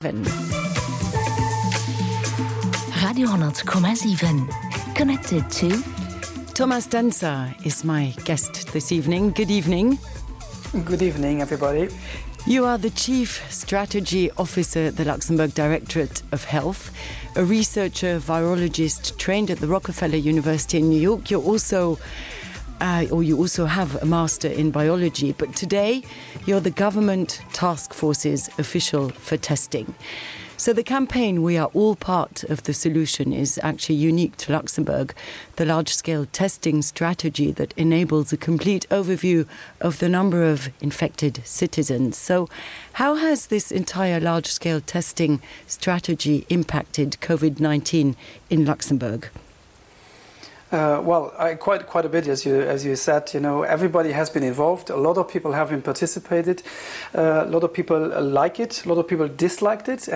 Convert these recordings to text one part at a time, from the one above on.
Radio 100,7. Connected to... Thomas Danza is my guest this evening. Good evening. Good evening, everybody. You are the Chief Strategy Officer at the Luxembourg Directorate of Health, a researcher, virologist trained at the Rockefeller University in New York. You also have a master in biology, but today you're the government task force's official for testing. So the campaign "We Are All Part of the Solution" is actually unique to Luxembourg, the large-scale testing strategy that enables a complete overview of the number of infected citizens. So how has this entire large-scale testing strategy impacted COVID-19 in Luxembourg? Quite a bit, as you said. You know, everybody has been involved. A lot of people have been participated. A lot of people like it. A lot of people disliked it,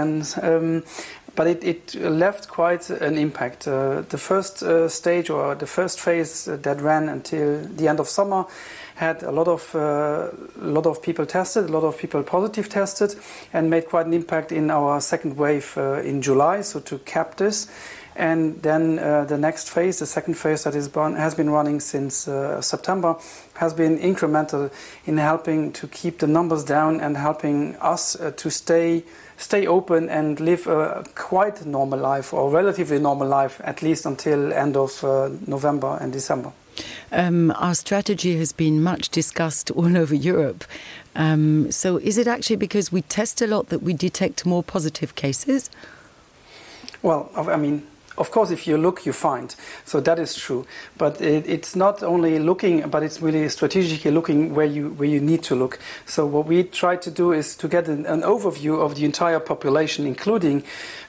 but it left quite an impact. The first stage or the first phase that ran until the end of summer had a lot of people tested, a lot of people positive tested, and made quite an impact in our second wave in July. So to cap this. And then the next phase, the second phase that has been running since September, has been incremental in helping to keep the numbers down and helping us to stay open and live a quite normal life, or relatively normal life, at least until end of November and December. Our strategy has been much discussed all over Europe. So is it actually because we test a lot that we detect more positive cases? Well, I mean, of course, if you look, you find. So that is true. But it's not only looking, but it's really strategically looking where you need to look. So what we try to do is to get an overview of the entire population, including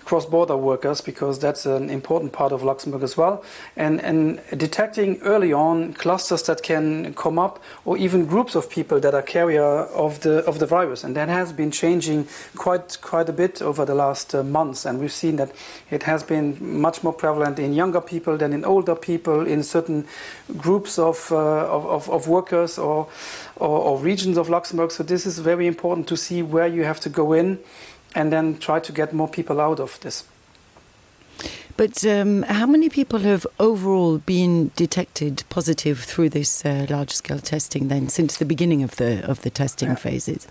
cross-border workers, because that's an important part of Luxembourg as well, and detecting early on clusters that can come up, or even groups of people that are carrier of the virus. And that has been changing quite a bit over the last months, and we've seen that it has been much more prevalent in younger people than in older people, in certain groups of workers or regions of Luxembourg. So this is very important to see where you have to go in and then try to get more people out of this. But how many people have overall been detected positive through this large-scale testing then, since the beginning of the testing phases?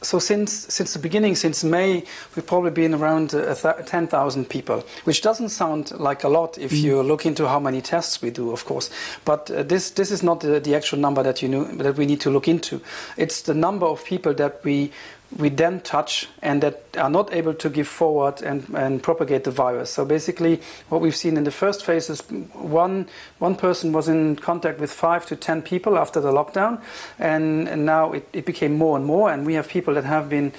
So since the beginning, since May, we've probably been around 10,000 people, which doesn't sound like a lot if you look into how many tests we do, of course. But this is not the actual number that we need to look into. It's the number of people that we then touch and that are not able to give forward and propagate the virus. So basically what we've seen in the first phase is one person was in contact with 5 to 10 people after the lockdown, and now it became more and more, and we have people that have been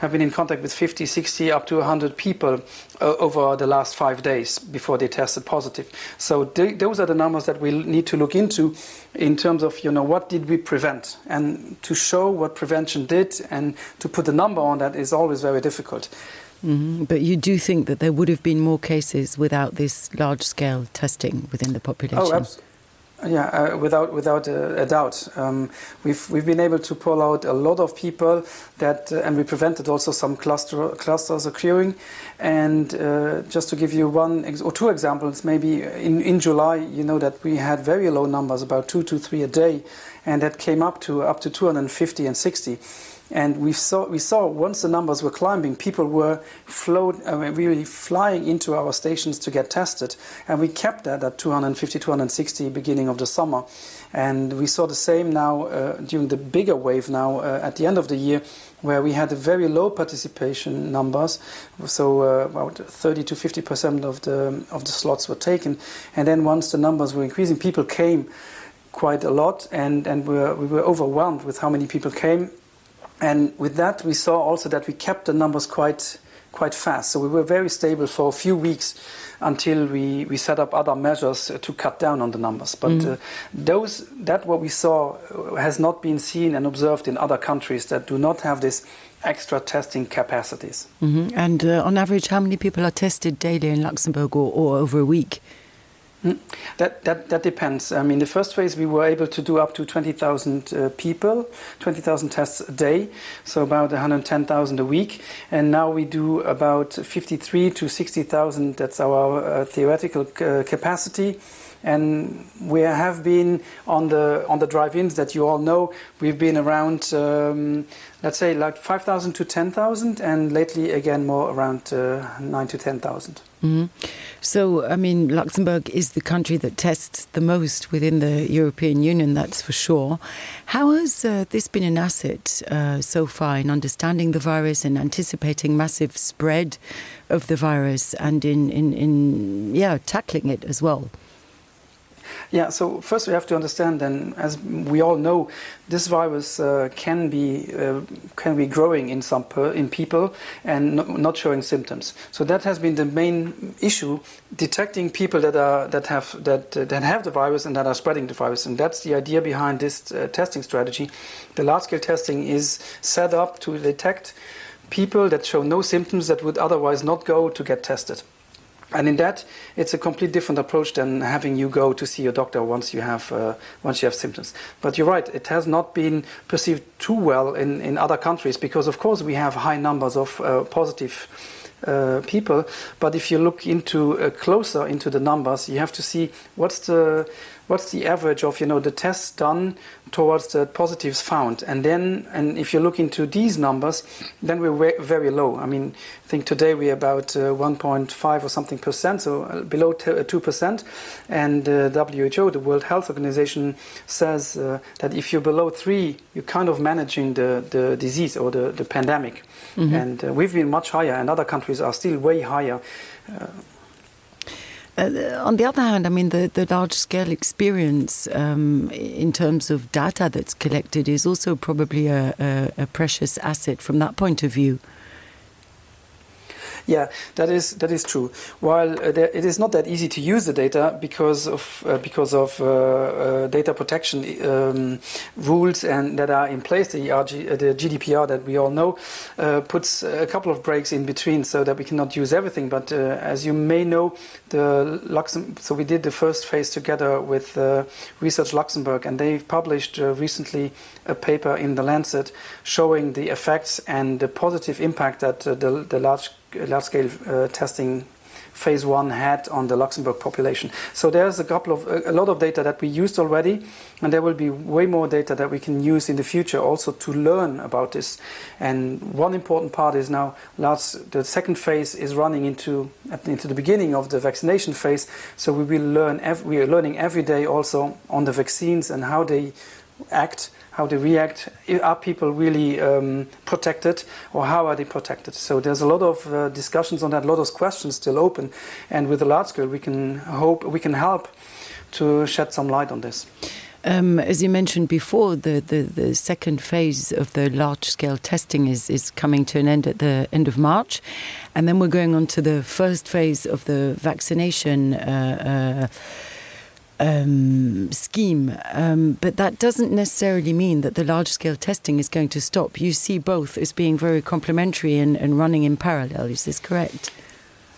in contact with 50, 60, up to 100 people over the last 5 days before they tested positive. So those are the numbers that we need to look into in terms of, what did we prevent? And to show what prevention did and to put a number on that is always very difficult. Mm-hmm. But you do think that there would have been more cases without this large-scale testing within the population? Oh, absolutely. Yeah, without a doubt. We've been able to pull out a lot of people and we prevented also some clusters occurring. And just to give you one or two examples, maybe in July, you know that we had very low numbers, about 2 to 3 a day, and that came up to 250 and 60. And we saw once the numbers were climbing, people were really flying into our stations to get tested. And we kept that at 250, 260 beginning of the summer. And we saw the same now during the bigger wave now at the end of the year, where we had a very low participation numbers. So about 30 to 50% of the slots were taken. And then once the numbers were increasing, people came quite a lot, and we were overwhelmed with how many people came. And with that, we saw also that we kept the numbers quite fast. So we were very stable for a few weeks until we set up other measures to cut down on the numbers. But what we saw has not been seen and observed in other countries that do not have this extra testing capacities. Mm-hmm. And on average, how many people are tested daily in Luxembourg or over a week? That depends. I mean, the first phase we were able to do up to 20,000 people, 20,000 tests a day, so about 110,000 a week. And now we do about 53 to 60,000. That's our theoretical capacity. And we have been on the drive-ins that you all know. We've been around, let's say, like 5,000 to 10,000, and lately again more around 9 to 10,000. Mm-hmm. So, I mean, Luxembourg is the country that tests the most within the European Union, that's for sure. How has this been an asset so far in understanding the virus and anticipating massive spread of the virus and in tackling it as well? Yeah, so first we have to understand, and as we all know, this virus can be growing in people and not showing symptoms. So that has been the main issue: detecting people that have the virus and that are spreading the virus. And that's the idea behind this testing strategy. The large-scale testing is set up to detect people that show no symptoms that would otherwise not go to get tested. And in that, it's a completely different approach than having you go to see your doctor once you have symptoms. But you're right; it has not been perceived too well in other countries because, of course, we have high numbers of positive people. But if you look closer into the numbers, you have to see what's the average of the tests done towards the positives found, and if you look into these numbers, then we're very low. I mean, I think today we're about 1.5 or something %, so below 2%. And WHO, the World Health Organization, says that if you're below 3, you're kind of managing the disease or the pandemic. Mm-hmm. And we've been much higher, and other countries are still way higher. On the other hand, I mean, the large-scale experience in terms of data that's collected is also probably a precious asset from that point of view. Yeah, that is true. While it is not that easy to use the data because of data protection rules and that are in place, the GDPR that we all know puts a couple of breaks in between so that we cannot use everything. But as you may know, so we did the first phase together with Research Luxembourg, and they've published recently a paper in The Lancet showing the effects and the positive impact that the large-scale testing phase 1 had on the Luxembourg population. So there's a lot of data that we used already, and there will be way more data that we can use in the future also to learn about this. And one important part is now the second phase is running into the beginning of the vaccination phase. So we are learning every day also on the vaccines and how they act, how they react. Are people really protected, or how are they protected? So there's a lot of discussions on that, a lot of questions still open, and with the large scale we can help to shed some light on this. As you mentioned before, the second phase of the large-scale testing is coming to an end at the end of March, and then we're going on to the first phase of the vaccination scheme, but that doesn't necessarily mean that the large-scale testing is going to stop. You see both as being very complementary and running in parallel. Is this correct?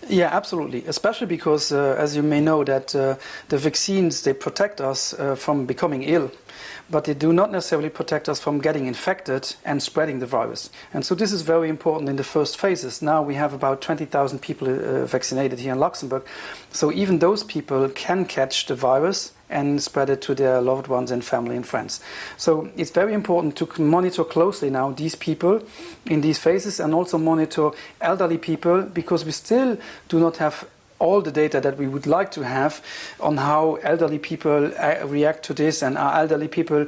Yeah, absolutely. Especially because, as you may know, that the vaccines, they protect us from becoming ill, but they do not necessarily protect us from getting infected and spreading the virus. And so this is very important in the first phases. Now we have about 20,000 people vaccinated here in Luxembourg. So even those people can catch the virus and spread it to their loved ones and family and friends. So it's very important to monitor closely now these people in these phases, and also monitor elderly people, because we still do not have all the data that we would like to have on how elderly people react to this, and are elderly people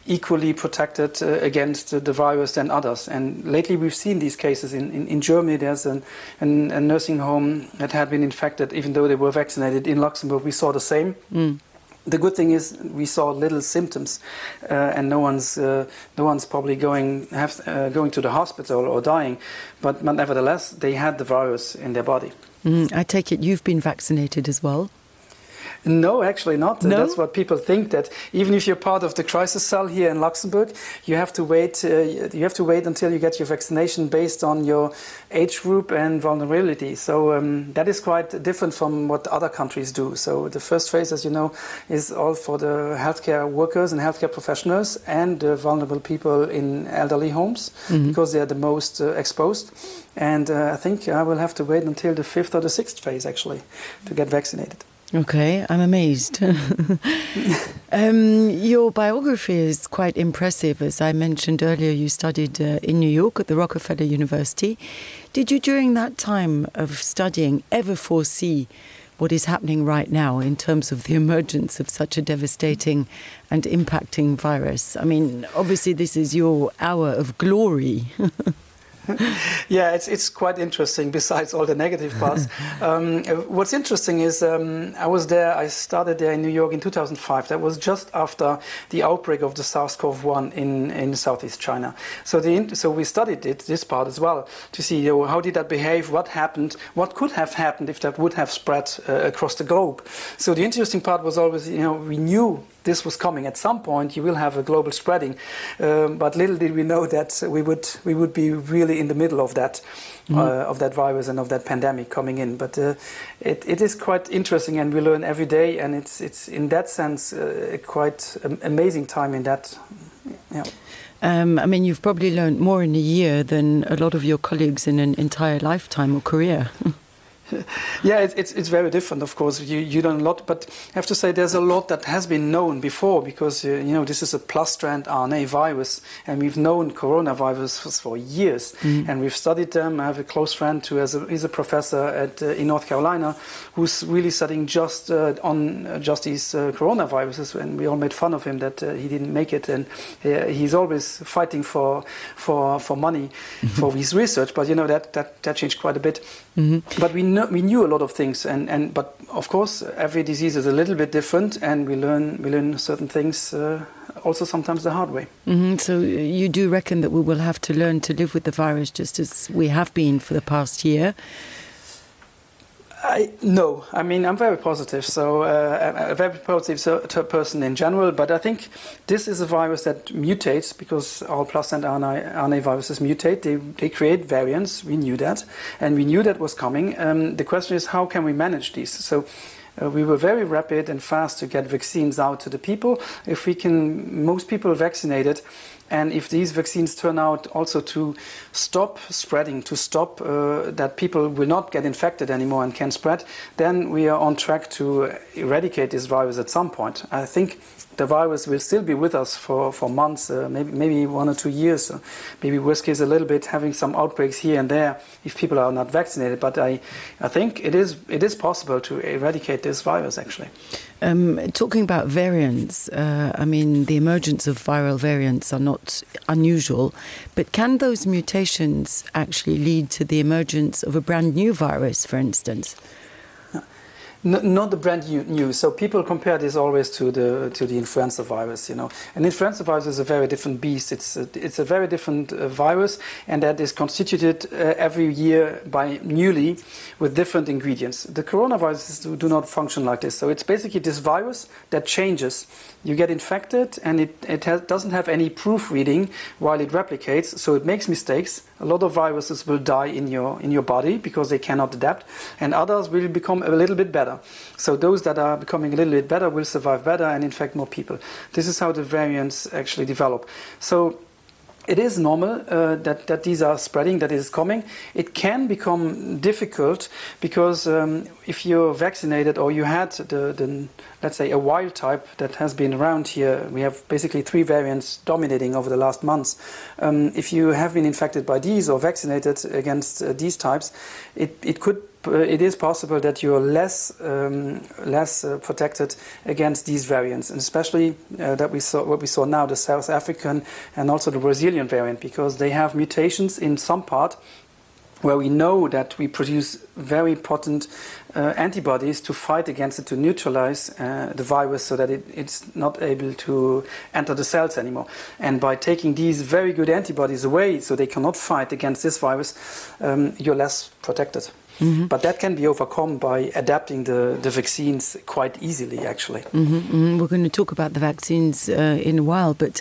equally protected against the virus than others. And lately we've seen these cases. In Germany there's a nursing home that had been infected even though they were vaccinated. In Luxembourg we saw the same. The good thing is we saw little symptoms, and no one's probably going to the hospital or dying, but nevertheless they had the virus in their body. I take it you've been vaccinated as well? No, actually not. No? That's what people think, that even if you're part of the crisis cell here in Luxembourg, you have to wait. You have to wait until you get your vaccination based on your age group and vulnerability. So that is quite different from what other countries do. So the first phase, as you know, is all for the healthcare workers and healthcare professionals and vulnerable people in elderly homes, because they are the most exposed. And I think I will have to wait until the 5th or the 6th phase actually to get vaccinated. Okay, I'm amazed. Your biography is quite impressive. As I mentioned earlier, you studied in New York at the Rockefeller University. Did you, during that time of studying, ever foresee what is happening right now in terms of the emergence of such a devastating and impacting virus? I mean, obviously this is your hour of glory. Yeah, it's quite interesting, besides all the negative parts. What's interesting is I started there in New York in 2005. That was just after the outbreak of the SARS-CoV-1 in Southeast China. So we studied this part as well, to see how did that behave, what happened, what could have happened if that would have spread across the globe. So the interesting part was always, we knew this was coming. At some point, you will have a global spreading, but little did we know that we would be really in the middle of that virus and of that pandemic coming in. But it is quite interesting, and we learn every day, and it's in that sense a quite amazing time in that. Yeah. I mean, you've probably learned more in a year than a lot of your colleagues in an entire lifetime or career. Yeah, it's very different, of course. You learn a lot, but I have to say there's a lot that has been known before, because this is a plus-strand RNA virus, and we've known coronavirus for years, and we've studied them. I have a close friend who is a professor in North Carolina, who's really studying just these coronaviruses, and we all made fun of him that he didn't make it, and he's always fighting for money for his research. But that changed quite a bit. But we knew a lot of things, but of course every disease is a little bit different, and we learn certain things also sometimes the hard way. So you do reckon that we will have to learn to live with the virus just as we have been for the past year? No, I mean, I'm very positive. So I'm a very positive person in general, but I think this is a virus that mutates, because all plus-strand RNA viruses mutate. They create variants. We knew that, and we knew that was coming. The question is, how can we manage these? So we were very rapid and fast to get vaccines out to the people. If we can, most people vaccinated, and if these vaccines turn out also to stop spreading, to stop that people will not get infected anymore and can spread, then we are on track to eradicate this virus at some point. I think the virus will still be with us for months, maybe 1 or 2 years, maybe worst case a little bit, having some outbreaks here and there if people are not vaccinated. But I think it is possible to eradicate this virus, actually. Talking about variants, I mean, the emergence of viral variants are not unusual, but can those mutations actually lead to the emergence of a brand new virus, for instance? Not the brand new. So people compare this always to the influenza virus, And influenza virus is a very different beast. It's a very different virus, and that is constituted every year by newly with different ingredients. The coronaviruses do not function like this. So it's basically this virus that changes. You get infected, and it doesn't have any proofreading while it replicates, so it makes mistakes. A lot of viruses will die in your body because they cannot adapt, and others will become a little bit better. So those that are becoming a little bit better will survive better and infect more people. This is how the variants actually develop. So it is normal that these are spreading, that it is coming. It can become difficult because if you're vaccinated or you had the let's say a wild type that has been around here, we have basically 3 variants dominating over the last months. If you have been infected by these or vaccinated against these types, it is possible that you're less protected against these variants, and especially what we saw now, the South African and also the Brazilian variant, because they have mutations in some part where we know that we produce very potent antibodies to fight against it, to neutralize the virus so that it's not able to enter the cells anymore. And by taking these very good antibodies away so they cannot fight against this virus, you're less protected. Mm-hmm. But that can be overcome by adapting the vaccines quite easily, actually. Mm-hmm, mm-hmm. We're going to talk about the vaccines in a while, but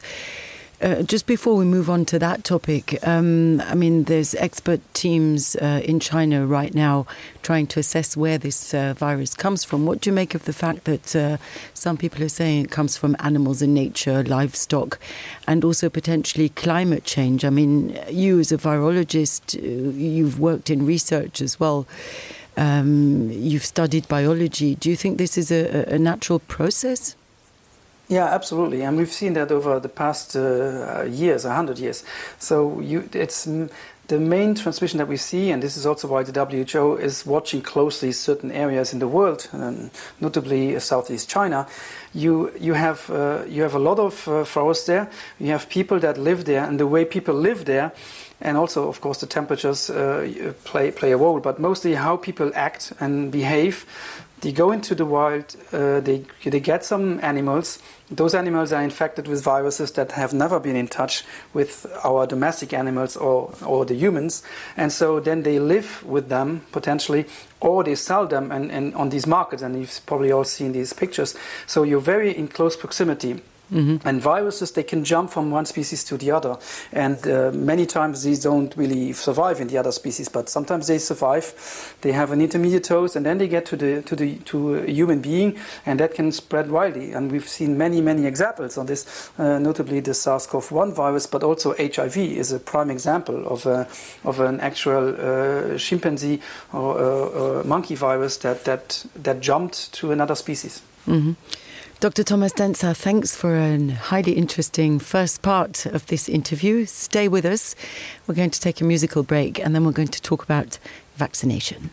just before we move on to that topic, I mean, there's expert teams in China right now trying to assess where this virus comes from. What do you make of the fact that some people are saying it comes from animals in nature, livestock, and also potentially climate change? I mean, you as a virologist, you've worked in research as well. You've studied biology. Do you think this is a natural process? Yeah, absolutely, and we've seen that over the past years, 100 years. So it's the main transmission that we see, and this is also why the WHO is watching closely certain areas in the world, notably Southeast China. You have a lot of forests there. You have people that live there, and the way people live there, and also, of course, the temperatures play a role, but mostly how people act and behave. They go into the wild, they get some animals. Those animals are infected with viruses that have never been in touch with our domestic animals or the humans. And so then they live with them, potentially, or they sell them and on these markets. And you've probably all seen these pictures. So you're very in close proximity. Mm-hmm. And viruses, they can jump from one species to the other, and many times these don't really survive in the other species, but sometimes they survive. They have an intermediate dose, and then they get to a human being, and that can spread widely. And we've seen many examples on this, notably the SARS-CoV-1 virus, but also HIV is a prime example of an actual chimpanzee or monkey virus that jumped to another species. Mm-hmm. Dr. Thomas Denzer, thanks for a highly interesting first part of this interview. Stay with us. We're going to take a musical break, and then we're going to talk about vaccination.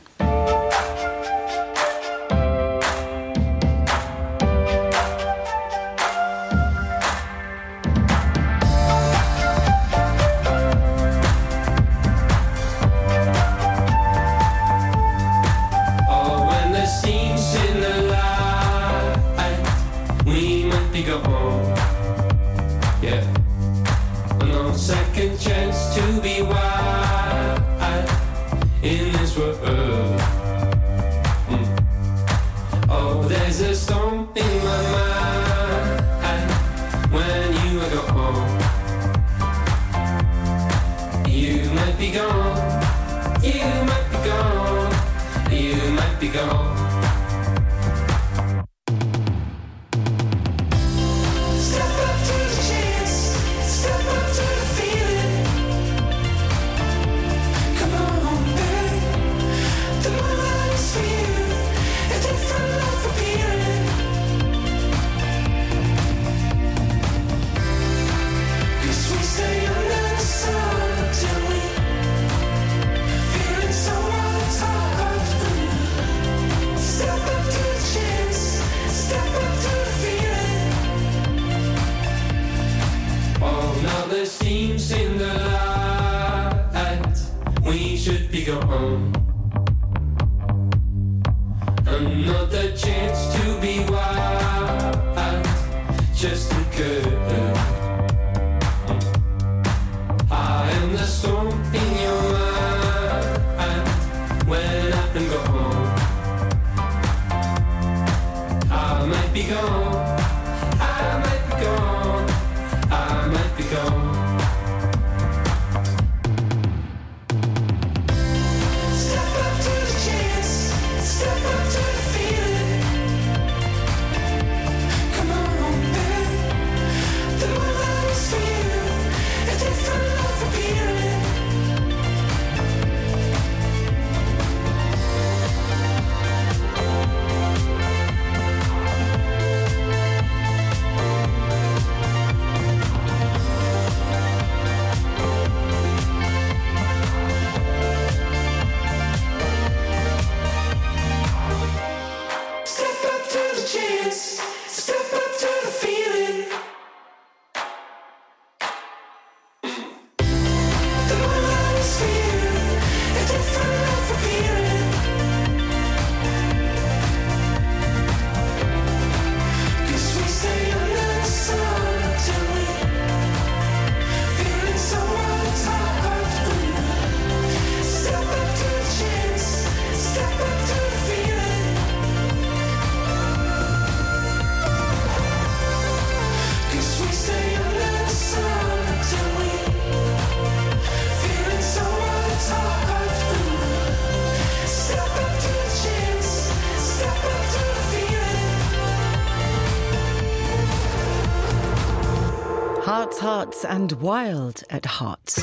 hearts and wild at heart.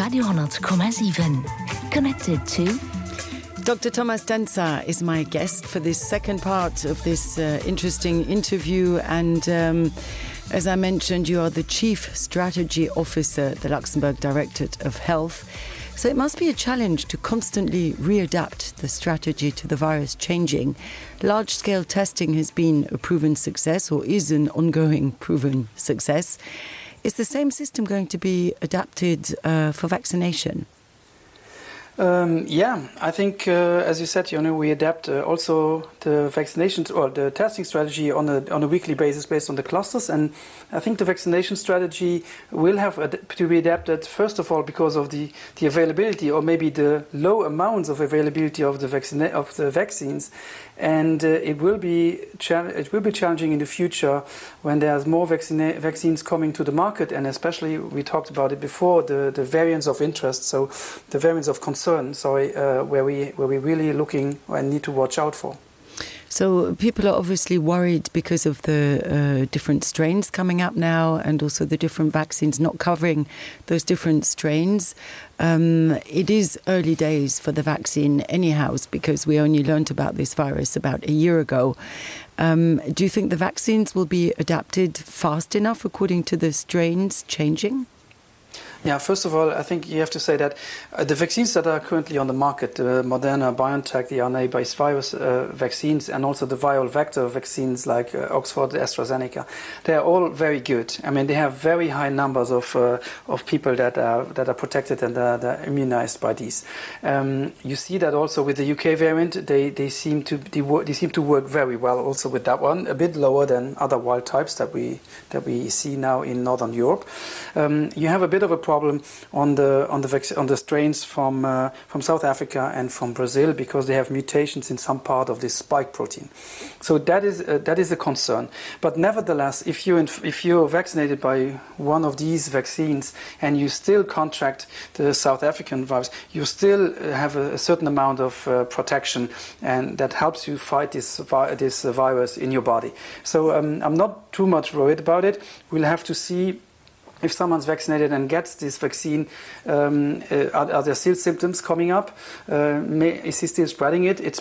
Radio 100,7. Connected to Dr. Thomas Denzer is my guest for this second part of this interesting interview. And as I mentioned, you are the Chief Strategy Officer at the Luxembourg Directorate of Health. So it must be a challenge to constantly readapt the strategy to the virus changing. Large-scale testing has been a proven success, or is an ongoing proven success. Is the same system going to be adapted for vaccination? Yeah, I think, as you said, we adapt also the vaccinations or the testing strategy on a weekly basis based on the clusters. And I think the vaccination strategy will have to be adapted, first of all, because of the availability or maybe the low amounts of availability of the vaccines. And it will be challenging in the future when there's more vaccines coming to the market, and especially, we talked about it before, the variants of interest, so the variants of concern, where we're really looking and need to watch out for. So people are obviously worried because of the different strains coming up now, and also the different vaccines not covering those different strains. It is early days for the vaccine anyhow, because we only learned about this virus about a year ago. Do you think the vaccines will be adapted fast enough according to the strains changing? Yeah, first of all, I think you have to say that the vaccines that are currently on the market, the Moderna, BioNTech, the RNA-based virus vaccines, and also the viral vector vaccines like Oxford, AstraZeneca, they are all very good. I mean, they have very high numbers of people that are protected and that are immunized by these. You see that also with the UK variant, they seem to work very well also with that one, a bit lower than other wild types that we see now in Northern Europe. You have a bit of a problem on the strains from South Africa and from Brazil, because they have mutations in some part of this spike protein. So that is a concern. But nevertheless, if you're vaccinated by one of these vaccines and you still contract the South African virus, you still have a certain amount of protection, and that helps you fight this virus in your body. So I'm not too much worried about it. We'll have to see if someone's vaccinated and gets this vaccine, are there still symptoms coming up? Is he still spreading it? It's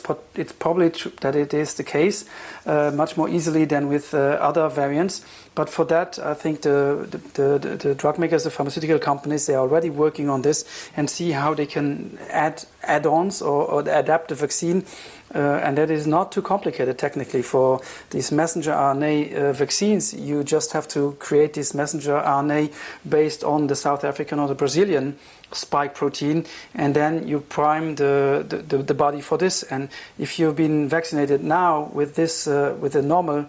probably true that it is the case, much more easily than with other variants. But for that, I think the drug makers, the pharmaceutical companies, they are already working on this and see how they can add add-ons or adapt the vaccine. And that is not too complicated technically. For these messenger RNA vaccines, you just have to create this messenger RNA based on the South African or the Brazilian spike protein, and then you prime the body for this. And if you've been vaccinated now with this with a normal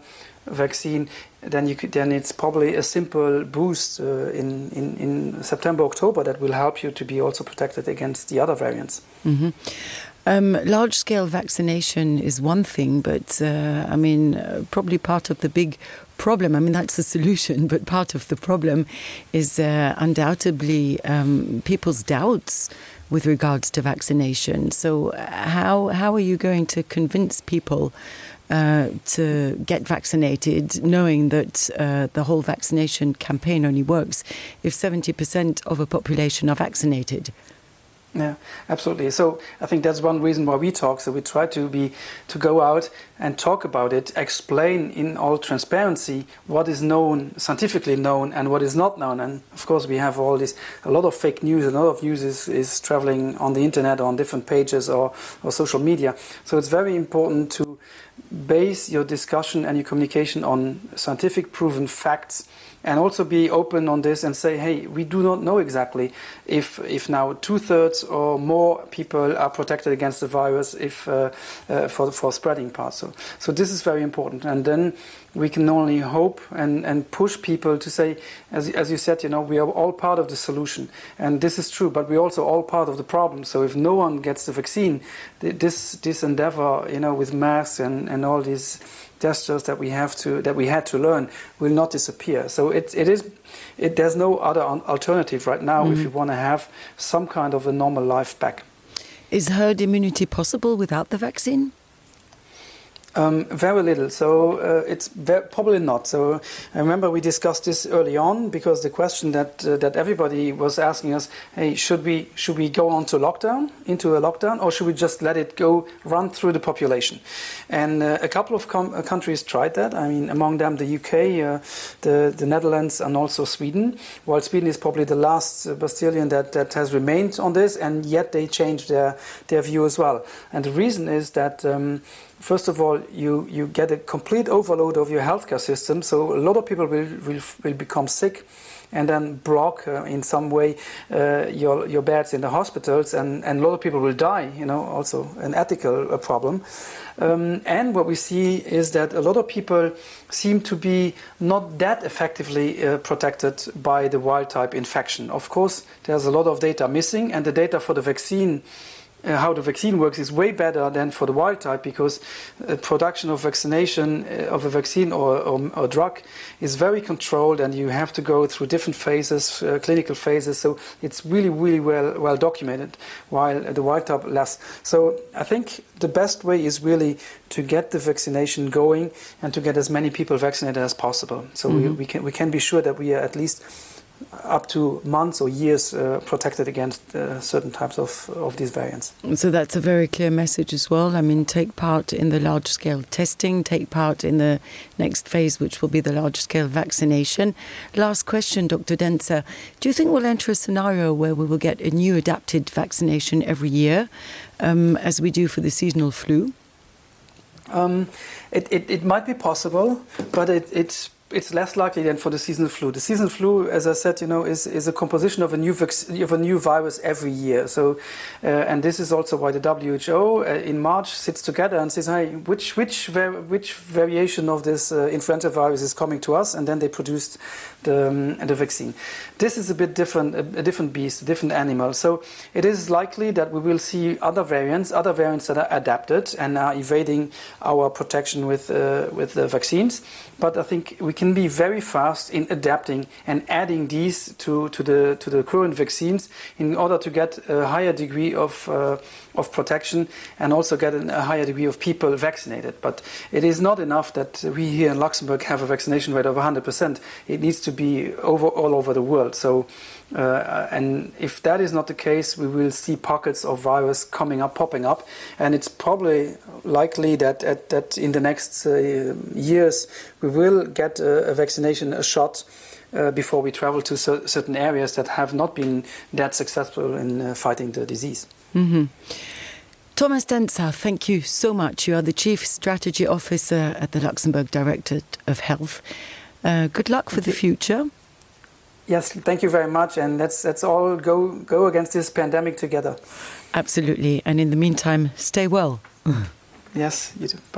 vaccine, then it's probably a simple boost in September, October that will help you to be also protected against the other variants. Mm-hmm. Large-scale vaccination is one thing, but probably part of the big problem, that's the solution, but part of the problem is undoubtedly people's doubts with regards to vaccination. So how are you going to convince people to get vaccinated, knowing that the whole vaccination campaign only works if 70% of a population are vaccinated? Yeah, absolutely. So I think that's one reason why we talk. So we try to go out and talk about it, explain in all transparency what is known, scientifically known, and what is not known. And of course, we have a lot of fake news, and a lot of news is traveling on the internet or on different pages or social media. So it's very important to base your discussion and your communication on scientific proven facts, and also be open on this and say, hey, we do not know exactly if now 2/3 or more people are protected against the virus for spreading parts. So this is very important. And then we can only hope and push people to say, as you said, we are all part of the solution. And this is true, but we're also all part of the problem. So if no one gets the vaccine, this endeavor, with masks and all these gestures that we had to learn will not disappear. So there's no other alternative right now if you want to have some kind of a normal life back. Is herd immunity possible without the vaccine? Very little, so it's probably not. So I remember we discussed this early on because the question that everybody was asking us, hey, should we go on to into a lockdown, or should we just let it run through the population? And a couple of countries tried that. I mean, among them the UK, the Netherlands, and also Sweden. While Sweden is probably the last bastion that has remained on this, and yet they changed their view as well. And the reason is that. First of all, you get a complete overload of your healthcare system, so a lot of people will become sick and then block in some way your beds in the hospitals, and a lot of people will die, also an ethical problem. And what we see is that a lot of people seem to be not that effectively protected by the wild-type infection. Of course, there's a lot of data missing, and the data for the vaccine how the vaccine works is way better than for the wild type, because production of vaccination of a vaccine or drug is very controlled, and you have to go through different phases, clinical phases. So it's really, really well documented, while the wild type less. So I think the best way is really to get the vaccination going and to get as many people vaccinated as possible. So we can be sure that we are at least up to months or years protected against certain types of these variants. So that's a very clear message as well. I mean, take part in the large-scale testing, take part in the next phase, which will be the large-scale vaccination. Last question, Dr. Denzer. Do you think we'll enter a scenario where we will get a new adapted vaccination every year, as we do for the seasonal flu? It might be possible, but it's less likely than for the seasonal flu. The seasonal flu, as I said, is a composition of a new virus every year. So, and this is also why the WHO in March sits together and says, "Hey, which variation of this influenza virus is coming to us?" And then they produced the vaccine. This is a bit different, a different beast, a different animal. So it is likely that we will see other variants that are adapted and are evading our protection with the vaccines. But I think we can be very fast in adapting and adding these to the current vaccines in order to get a higher degree of protection and also get a higher degree of people vaccinated. But it is not enough that we here in Luxembourg have a vaccination rate of 100%. It needs to be all over the world. So, and if that is not the case, we will see pockets of virus popping up, and it's probably likely that in the next years we will get a vaccination, a shot, before we travel to certain areas that have not been that successful in fighting the disease. Mm-hmm. Thomas Denzer, thank you so much. You are the Chief Strategy Officer at the Luxembourg Directorate of Health. Good luck for the future. Yes, thank you very much, and let's all go against this pandemic together. Absolutely, and in the meantime, stay well. Yes, you too. Bye.